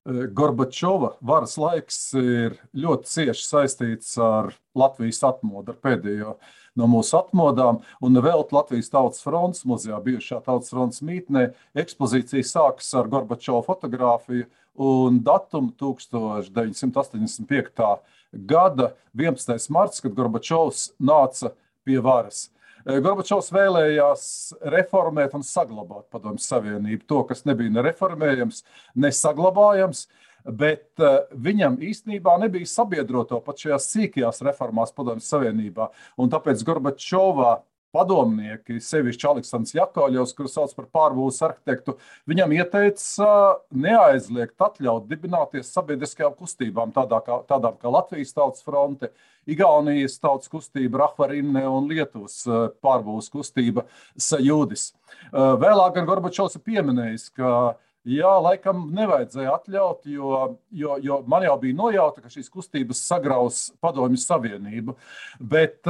Gorbačova varas laiks ir ļoti cieši saistīts ar Latvijas atmodu, ar pēdējo no mūsu atmodām. Un vēl Latvijas Tautas fronts muzejā, bijušā Tautas fronts mītnē, ekspozīcija sākas ar Gorbačova fotogrāfiju un datumu 1985. Gada 11. marts, kad Gorbačovs nāca pie varas. Gorbačovs vēlējās reformēt un saglabāt Padomju Savienību. To, kas nebija ne reformējams, ne saglabājams, bet viņam īstenībā nebija sabiedroto pat šajās sīkajās reformās Padomju Savienībā. Un tāpēc Gorbačovā padomnieki, sevišķi Aleksandrs Jakovļevs, kuru sauc par pārbūves arhitektu, viņam ieteica neaizliegt atļaut dibināties sabiedriskajām kustībām, tādām kā Latvijas Tautas fronte, Igaunijas tautas kustība Rahvarinne un Lietuvas pārbūves kustība Sajūdis. Vēlāk gan Gorbačovs ir pieminējis, ka jā, laikam nevajadzēja atļaut, jo man jau bija nojauta, ka šīs kustības sagraus Padomju Savienību, bet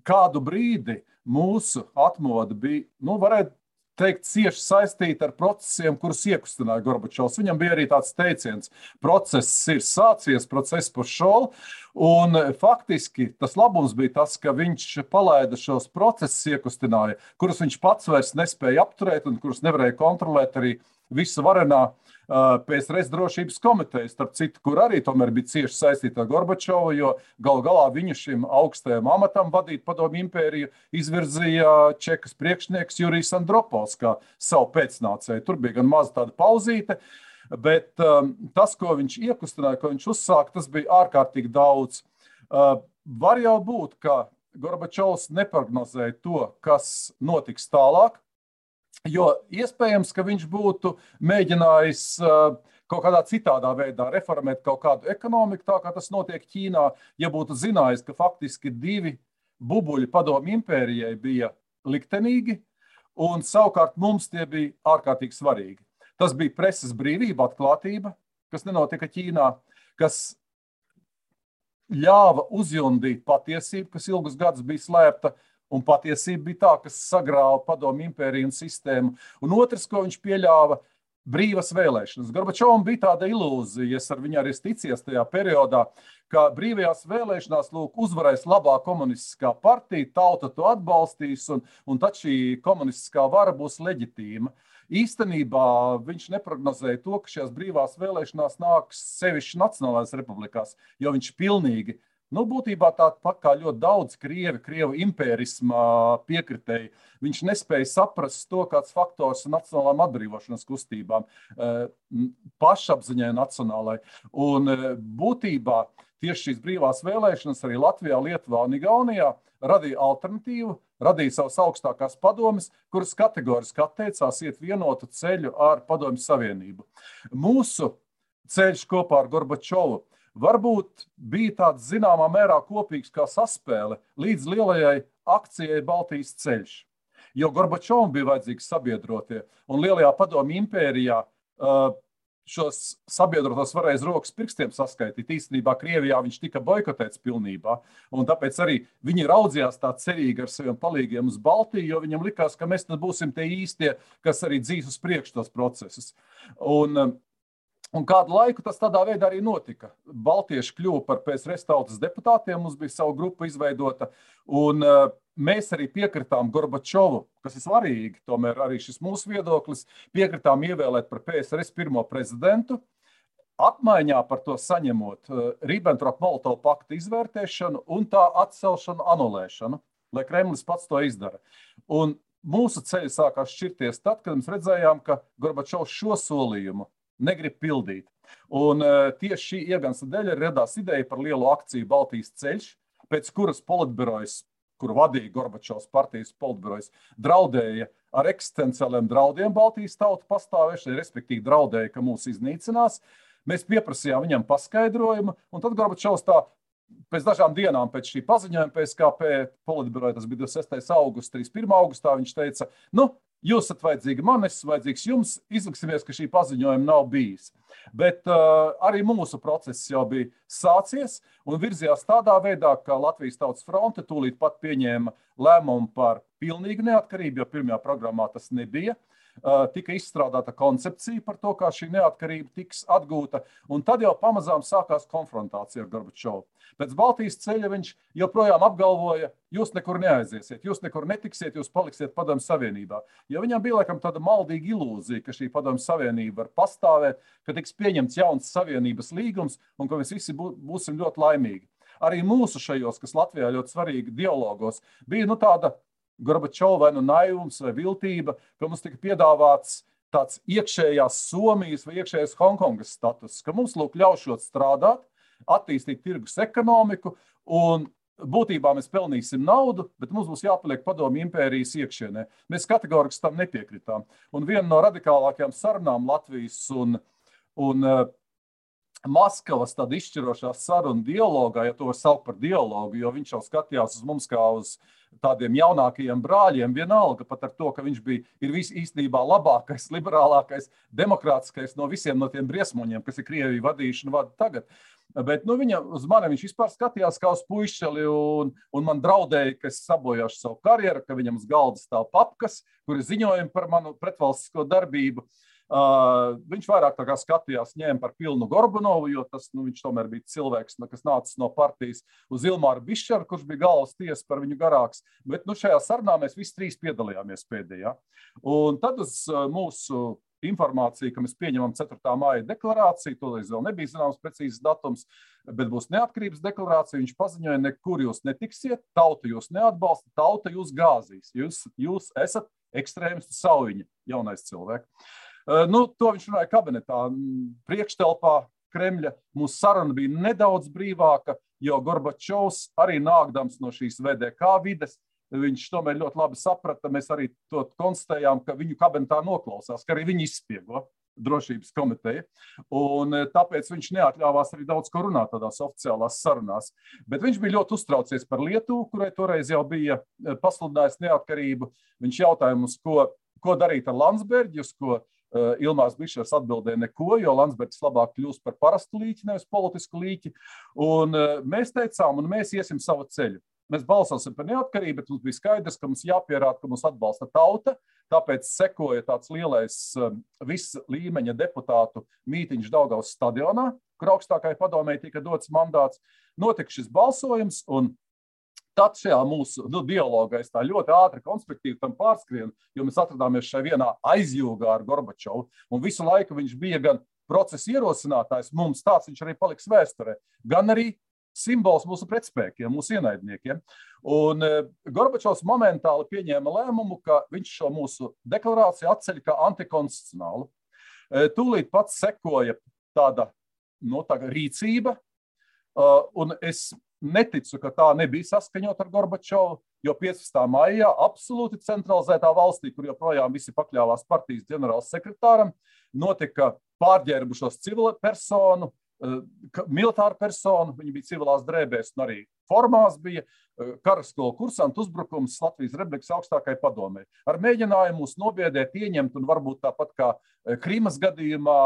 kādu brīdi mūsu atmoda bija, varētu teikt, cieši saistīta ar procesiem, kurus iekustināja Gorbačovs. Viņam bija arī tāds teiciens, process ir sācies, process pošol, un faktiski tas labums bija tas, ka viņš palaida šos procesus iekustināja, kurus viņš pats vairs nespēja apturēt un kurus nevarēja kontrolēt arī visu varenā PSRS drošības komiteja, starp citu, kur arī tomēr bija cieši saistīta ar Gorbačovu, jo galu galā viņu šim augstajam amatam vadīt Padomju impēriju izvirzīja Čekas priekšnieks Jurijs Andropovs kā savu pēcnācēju. Tur bija gan maza tāda pauzīte, bet tas, ko viņš iekustināja, ko viņš uzsāka, tas bija ārkārtīgi daudz. Var jau būt, ka Gorbačovs neprognozēja to, kas notiks tālāk, jo iespējams, ka viņš būtu mēģinājis kaut kādā citādā veidā reformēt kaut kādu ekonomiku, tā kā tas notiek Ķīnā, ja būtu zinājis, ka faktiski 2 bubuļi Padomju impērijai bija liktenīgi, un savukārt mums tie bija ārkārtīgi svarīgi. Tas bija preses brīvība, atklātība, kas nenotika Ķīnā, kas ļāva uzjundīt patiesību, kas ilgus gadus bija slēpta, un patiesība bija tā, kas sagrāva Padomju impēriju un sistēmu. Un otrs, ko viņš pieļāva, brīvas vēlēšanas. Gorbačovam bija tāda ilūzija, es ar viņu arī ticies tajā periodā, ka brīvajās vēlēšanās uzvarēs labā komunistiskā partija, tauta to atbalstīs, un tad šī komunistiskā vara būs leģitīma. Īstenībā viņš neprognozēja to, ka šajās brīvās vēlēšanās nāks sevišķi Nacionālajās republikās, jo viņš pilnīgi būtībā tāpat kā ļoti daudz Krievu impērisma piekritēji, viņš nespēja saprast to, kāds faktors nacionālām atbrīvošanas kustībām, pašapziņai nacionālai. Un būtībā tieši šīs brīvās vēlēšanas arī Latvijā, Lietuvā un Igaunijā radīja alternatīvu, radīja savas augstākās padomes, kuras kategoriski atteicās iet vienotu ceļu ar Padomju Savienību. Mūsu ceļš kopā ar Gorbačovu varbūt bija tāds zināmā mērā kopīgs kā saspēle līdz lielajai akcijai Baltijas ceļš. Jo Gorbačovam bija vajadzīgi sabiedrotie, un lielajā Padomju impērijā šos sabiedrotos varēja rokas pirkstiem saskaitīt. Īstenībā Krievijā viņš tika boikotēts pilnībā, un tāpēc arī viņi raudzījās tā cerīgi ar saviem palīgiem uz Baltiju, jo viņam likās, ka mēs būsim tie īstie, kas arī dzīs uz priekšu tos procesus. Un kādu laiku tas tādā veidā arī notika. Baltieši kļuva par PSRS tautas deputātiem, mums bija savu grupu izveidota, un mēs arī piekritām Gorbačovu, kas ir svarīgi, tomēr arī šis mūsu viedoklis, piekritām ievēlēt par PSRS pirmo prezidentu, apmaiņā par to saņemot Ribbentrop-Molotova pakta izvērtēšanu un tā atcelšanu, anulēšanu, lai Kremlis pats to izdara. Un mūsu ceļi sākās šķirties tad, kad mēs redzējām, ka Gorbačovs šo solījumu negrib pildīt. Un tieši šī iegansta dēļ radās ideja par lielu akciju Baltijas ceļš, pēc kuras politbirojas, kuru vadīja Gorbačovs partijas politbirojas, draudēja ar eksistenciāliem draudiem Baltijas tautu pastāvēšanai, respektīvi draudēja, ka mūs iznīcinās. Mēs pieprasījām viņam paskaidrojumu, un tad Gorbačovs pēc dažām dienām pēc šī paziņojuma PSKP politbiroja, tas bija 26. augusts, 31. augustā, viņš teica, jūs esat vajadzīgi man, es esmu vajadzīgs jums, izliksimies, ka šī paziņojuma nav bijis. Bet arī mūsu process jau bija sācies un virzījās tādā veidā, ka Latvijas Tautas fronte tūlīt pat pieņēma lēmumu par pilnīgu neatkarību, jo pirmajā programmā tas nebija. tika izstrādāta koncepcija par to, kā šī neatkarība tiks atgūta, un tad jau pamazām sākās konfrontācija ar Gorbačovu. Pēc Baltijas ceļa viņš joprojām apgalvoja, jūs nekur neaiziesiet, jūs nekur netiksiet, jūs paliksiet Padomju Savienībā. Jo viņam bija laikam tāda maldīga ilūzija, ka šī Padomju Savienība var pastāvēt, ka tiks pieņemts jauns Savienības līgums un ka mēs visi būsim ļoti laimīgi. Arī mūsu šajos, kas Latvijā ļoti svarīgi dialogos, bija tāda Gorbačova vai naivums vai viltība, ka mums tika piedāvāts tāds iekšējās Somijas vai iekšējās Hongkongas status, ka mums ļaušot strādāt, attīstīt tirgus ekonomiku un būtībā mēs pelnīsim naudu, bet mums būs jāpaliek Padomju impērijas iekšienē. Mēs kategoriski tam nepiekritām. Un viena no radikālākajām sarunām Latvijas un Maskavas tāda izšķirošā saruna dialogā, ja to var saukt par dialogu, jo viņš jau skatījās uz mums kā uz tādiem jaunākajiem brāļiem, vienalga pat ar to, ka viņš ir īstenībā labākais, liberālākais, demokrātiskais no visiem no tiem briesmoņiem, kas ir Krieviju vadījuši un vada tagad. Bet uz mani viņš vispār skatījās kā uz puišeli un man draudēja, ka es sabojāšu savu karjeru, ka viņam uz galda stāv papkas, kuri ziņojumi par manu pretvalstisko darbību. Viņš vairāk tā kā skatījās, ņēma par pilnu Gorbunovu, jo viņš tomēr bija cilvēks, kas nācis no partijas, uz Ilmāru Bišķaru, kurš bija galvas tiesa par viņu garāks. Bet šajā sarunā mēs visi trīs piedalījāmies pēdējā. Un tad uz mūsu informāciju, ka mēs pieņemam 4. māja deklarāciju, toreiz vēl nebija zināms precīzs datums, bet būs neatkarības deklarācija. Viņš paziņoja, nekur jūs netiksiet, tauta jūs neatbalsta, tauta jūs gāzīs. Jūs esat ekstrēmistu saujiņa, jaunais cilvēks. To viņš runāja kabinetā, priekštelpā Kremļa. Mūsu saruna bija nedaudz brīvāka, jo Gorbačovs arī nākdams no šīs VDK vides, viņš tomēr ļoti labi saprata, mēs arī to konstatējām, ka viņu kabinetā noklausās, ka arī viņi izspiego drošības komiteja, un tāpēc viņš neatļāvās arī daudz ko runāt tādās oficiālās sarunās. Bet viņš bija ļoti uztraucies par Lietuvu, kurai toreiz jau bija pasludinājis neatkarību. Viņš jautāja mums, ko darīt ar Landsbergi, uz ko Ilmārs Bišers atbildēja neko, jo Landsbergis labāk kļūst par parastu līķi, nevis politisku līķi. Un mēs teicām, un mēs iesim savu ceļu. Mēs balsosim par neatkarību, bet mums bija skaidrs, ka mums jāpierāda, ka mums atbalsta tauta. Tāpēc sekoja tāds lielais viss līmeņa deputātu mītiņš Daugavas stadionā, kur augstākajai padomei tika dots mandāts. Notika šis balsojums, un tad šajā mūsu dialogā es tā ļoti ātri, konspektīvi tam pārskrienu, jo mēs atradāmies šai vienā aizjūgā ar Gorbačovu, un visu laiku viņš bija gan procesa ierosinātājs, mums tāds viņš arī paliks vēsturē, gan arī simbols mūsu pretspēkiem, mūsu ienaidniekiem. Un Gorbačovs momentāli pieņēma lēmumu, ka viņš šo mūsu deklarāciju atceļ kā antikonstitucionālu. Tūlīt pats sekoja tāda rīcība, un es neticu, ka tā nebija saskaņot ar Gorbačovu, jo 15. maijā absolūti centralizētā valstī, kur joprojām visi pakļāvās partijas ģenerāls sekretāram, notika pārģērbušos civilu personu, militāru personu, viņi bija civilās drēbēs un arī formās bija karaskolu kursantu uzbrukums Latvijas Republikas augstākajai padomei. Ar mēģinājumu mūs nobiedēt, ieņemt un varbūt tāpat kā Krimas gadījumā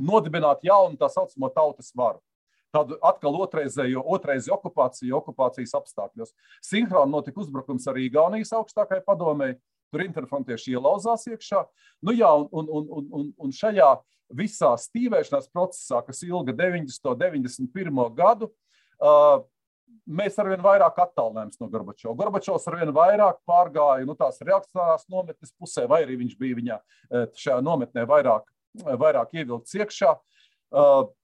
nodibināt jaunu tā saucamo tautas varu. Tādu atkal otrreizi okupācijas apstākļos. Sinhroni notika uzbrukums arī Igaunijas augstākajai padomei, tur interfrontieši ielauzās iekšā. Un šajā visā stīvēšanās procesā, kas ilga 91. gadu, mēs arvien vairāk attālinājāmies no Gorbačova. Gorbačovs arvien vairāk pārgāja tās reakcionārās nometnes pusē, vai arī viņš bija viņā šajā nometnē vairāk ievilkts iekšā.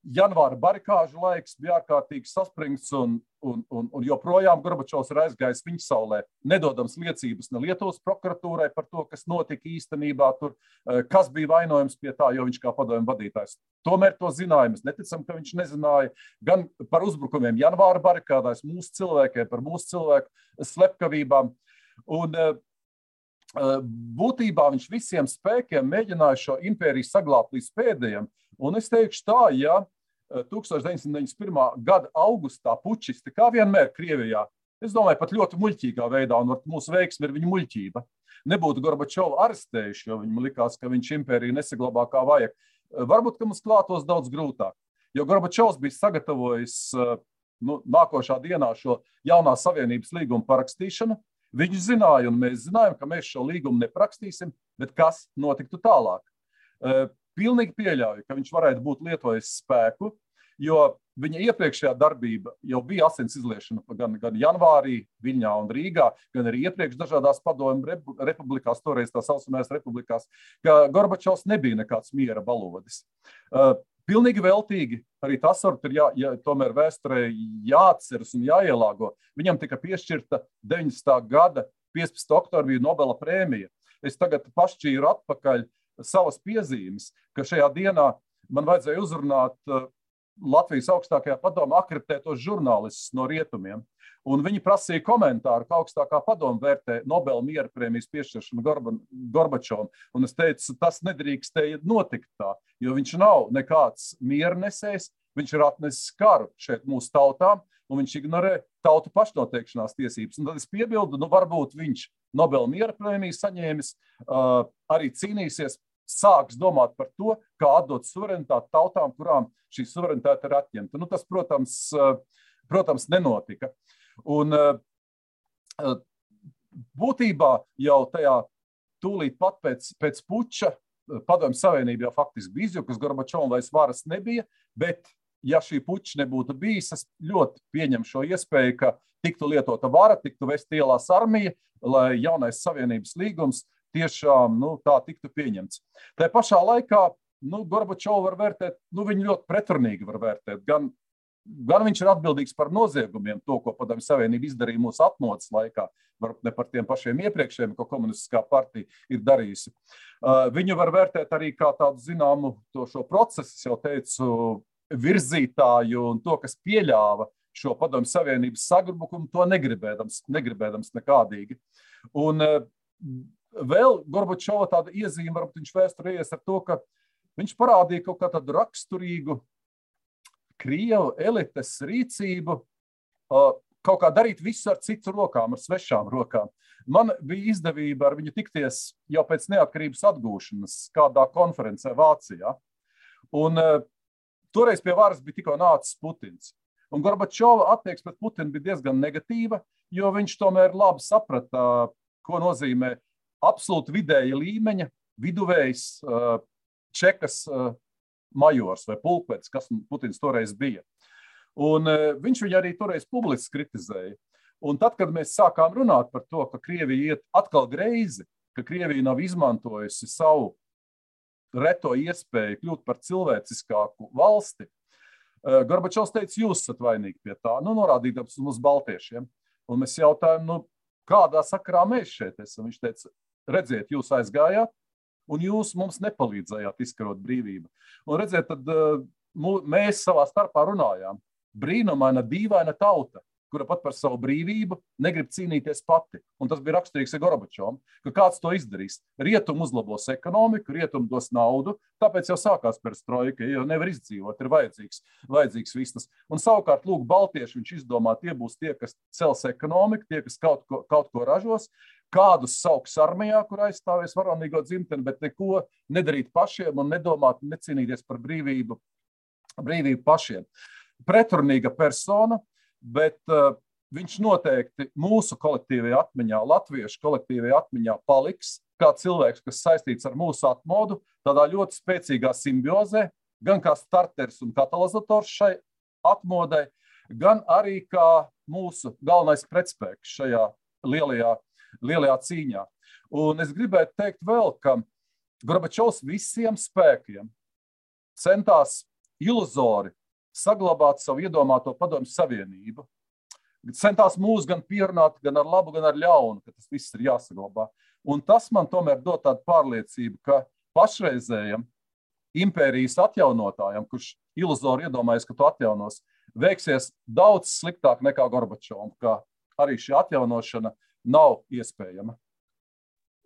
Janvāra barikāžu laiks bija ārkārtīgi saspringts un joprojām Gorbačovs ir aizgājis viņa saulē, nedodams liecības ne Lietuvas prokuratūrai par to, kas notika īstenībā tur, kas bija vainojams pie tā, jo viņš kā padomju vadītājs tomēr to zināja. Mēs neticam, ka viņš nezināja gan par uzbrukumiem janvāra barikādās mūsu cilvēkiem, par mūsu cilvēku slepkavībām. Un būtībā viņš visiem spēkiem mēģināja šo impēriju saglābt līdz pēdējiem. Un es teikšu tā, ja 1991. gada augustā pučisti, kā vienmēr Krievijā, es domāju, pat ļoti muļķīgā veidā, un mūsu veiksme ir viņa muļķība, nebūtu Gorbačovu arestējuši, jo viņam likās, ka viņš impēriju nesaglabā kā vajag. Varbūt, ka mums klātos daudz grūtāk, jo Gorbačovs bija sagatavojis nākošā dienā šo jaunā savienības līguma parakstīšanu. Viņš zināja, un mēs zinājām, ka mēs šo līgumu neprakstīsim, bet kas notiktu tālāk. Pilnīgi pieļauju, ka viņš varētu būt lietojis spēku, jo viņa iepriekšējā darbība jau bija asins izliešana gan janvārī Viļņā un Rīgā, gan arī iepriekš dažādās padomju republikās, toreiz tā saucamajās republikās, ka Gorbačovs nebija nekāds miera balodis. Pilnīgi veltīgi, arī tas ir tomēr vēsturē jāatceras un jāielāgo. Viņam tika piešķirta 90. gada 15. oktobrī Nobela prēmija. Es tagad pašķīru atpakaļ savas piezīmes, ka šajā dienā man vajadzēja uzrunāt Latvijas augstākajā padomā akreditētos žurnālistus no rietumiem. Un viņi prasīja komentāru, kā augstākā padoma vērtē Nobela miera prēmijas piešķiršanu Gorbačovam. Un es teicu, tas nedrīkstēja notikt tā, jo viņš nav nekāds miernesējs, viņš ir atnesis karu šeit mūsu tautām, un viņš ignorē tautu pašnoteikšanās tiesības. Un tad es piebildu, varbūt viņš Nobela miera prēmiju saņēmis, arī cīnīsies, sāks domāt par to, kā atdot suverenitāti tautām, kurām šī suverenitāte ir atņemta. Tas, protams, nenotika. Un būtībā jau tajā tūlīt pat pēc puča Padomju Savienība jau faktiski bija izjukusi, Gorbačovam vairs varas nebija, bet ja šī puča nebūtu bijis, es ļoti pieņemu šo iespēju, ka tiktu lietota vara, tiktu vest ielās armija, lai jaunais Savienības līgums tiešām tā tiktu pieņemts. Tā pašā laikā Gorbačovu var vērtēt, viņu ļoti pretrunīgi var vērtēt. Gan viņš ir atbildīgs par noziegumiem, to, ko Padomju Savienība izdarīja mūsu atmodas laikā, varbūt ne par tiem pašiem iepriekšējiem, ko komunistiskā partija ir darījusi. Viņu var vērtēt arī kā tādu zināmu šo procesu, es jau teicu, virzītāju un to, kas pieļāva šo Padomju Savienības sagrubumu, to negribēdams nekādīgi. Un vēl Gorbačova tāda iezīme, varbūt viņš vēsturējies ar to, ka viņš parādīja kaut kā tādu raksturīgu Krievu elites rīcību, kaut kā darīt visu ar citu rokām, ar svešām rokām. Man bija izdevība ar viņu tikties jau pēc neatkarības atgūšanas kādā konferencē Vācijā. Un toreiz pie varas bija tikko nācis Putins. Un Gorbačova attieksme pret Putinu bija diezgan negatīva, jo viņš tomēr labi saprata, ko nozīmē absolūti vidēja līmeņa viduvējs Čekas majors vai pulkvedis, kas Putins toreiz bija. Un viņš viņu arī toreiz publiski kritizēja. Un tad, kad mēs sākām runāt par to, ka Krievija iet atkal greizi, ka Krievija nav izmantojusi savu reto iespēju kļūt par cilvēciskāku valsti, Gorbačovs teica, jūs esat vainīgi pie tā, norādīdams uz baltiešiem. Un mēs jautājām, kādā sakarā mēs šeit esam? Viņš teica, redziet, jūs aizgājāt, un jūs mums nepalīdzējāt izkarot brīvību. Un redziet, tad mēs savā starpā runājām. Brīnumaina, dīvaina tauta, kura pat par savu brīvību negrib cīnīties pati. Un tas bija raksturīgs Gorbačovam, ka kāds to izdarīs. Rietum uzlabos ekonomiku, rietum dos naudu, tāpēc jau sākās perestroika, jo nevar izdzīvot, ir vajadzīgs vistas. Un savukārt, lūk, baltieši viņš izdomā, tie būs tie, kas cels ekonomiku, tie, kas kaut ko ražos, kādus sauks armijā, kur aizstāvēs varonīgo dzimteni, bet neko nedarīt pašiem un nedomāt, necīnīties par brīvību pašiem. Pretrunīga persona, bet viņš noteikti mūsu kolektīvajā atmiņā, latviešu kolektīvajā atmiņā paliks kā cilvēks, kas saistīts ar mūsu atmodu, tādā ļoti spēcīgā simbiozē, gan kā starters un katalizators šai atmodai, gan arī kā mūsu galvenais pretspēks šajā lielajā cīņā. Un es gribētu teikt vēl, ka Gorbačovs visiem spēkiem centās iluzori saglabāt savu iedomāto Padomju Savienību. Centās mūs gan pierunāt, gan ar labu, gan ar ļaunu, ka tas viss ir jāsaglabā. Un tas man tomēr dod tādu pārliecību, ka pašreizējam impērijas atjaunotājam, kurš iluzori iedomājas, ka to atjaunos, veiksies daudz sliktāk nekā Gorbačovam, ka arī šī atjaunošana nav iespējama.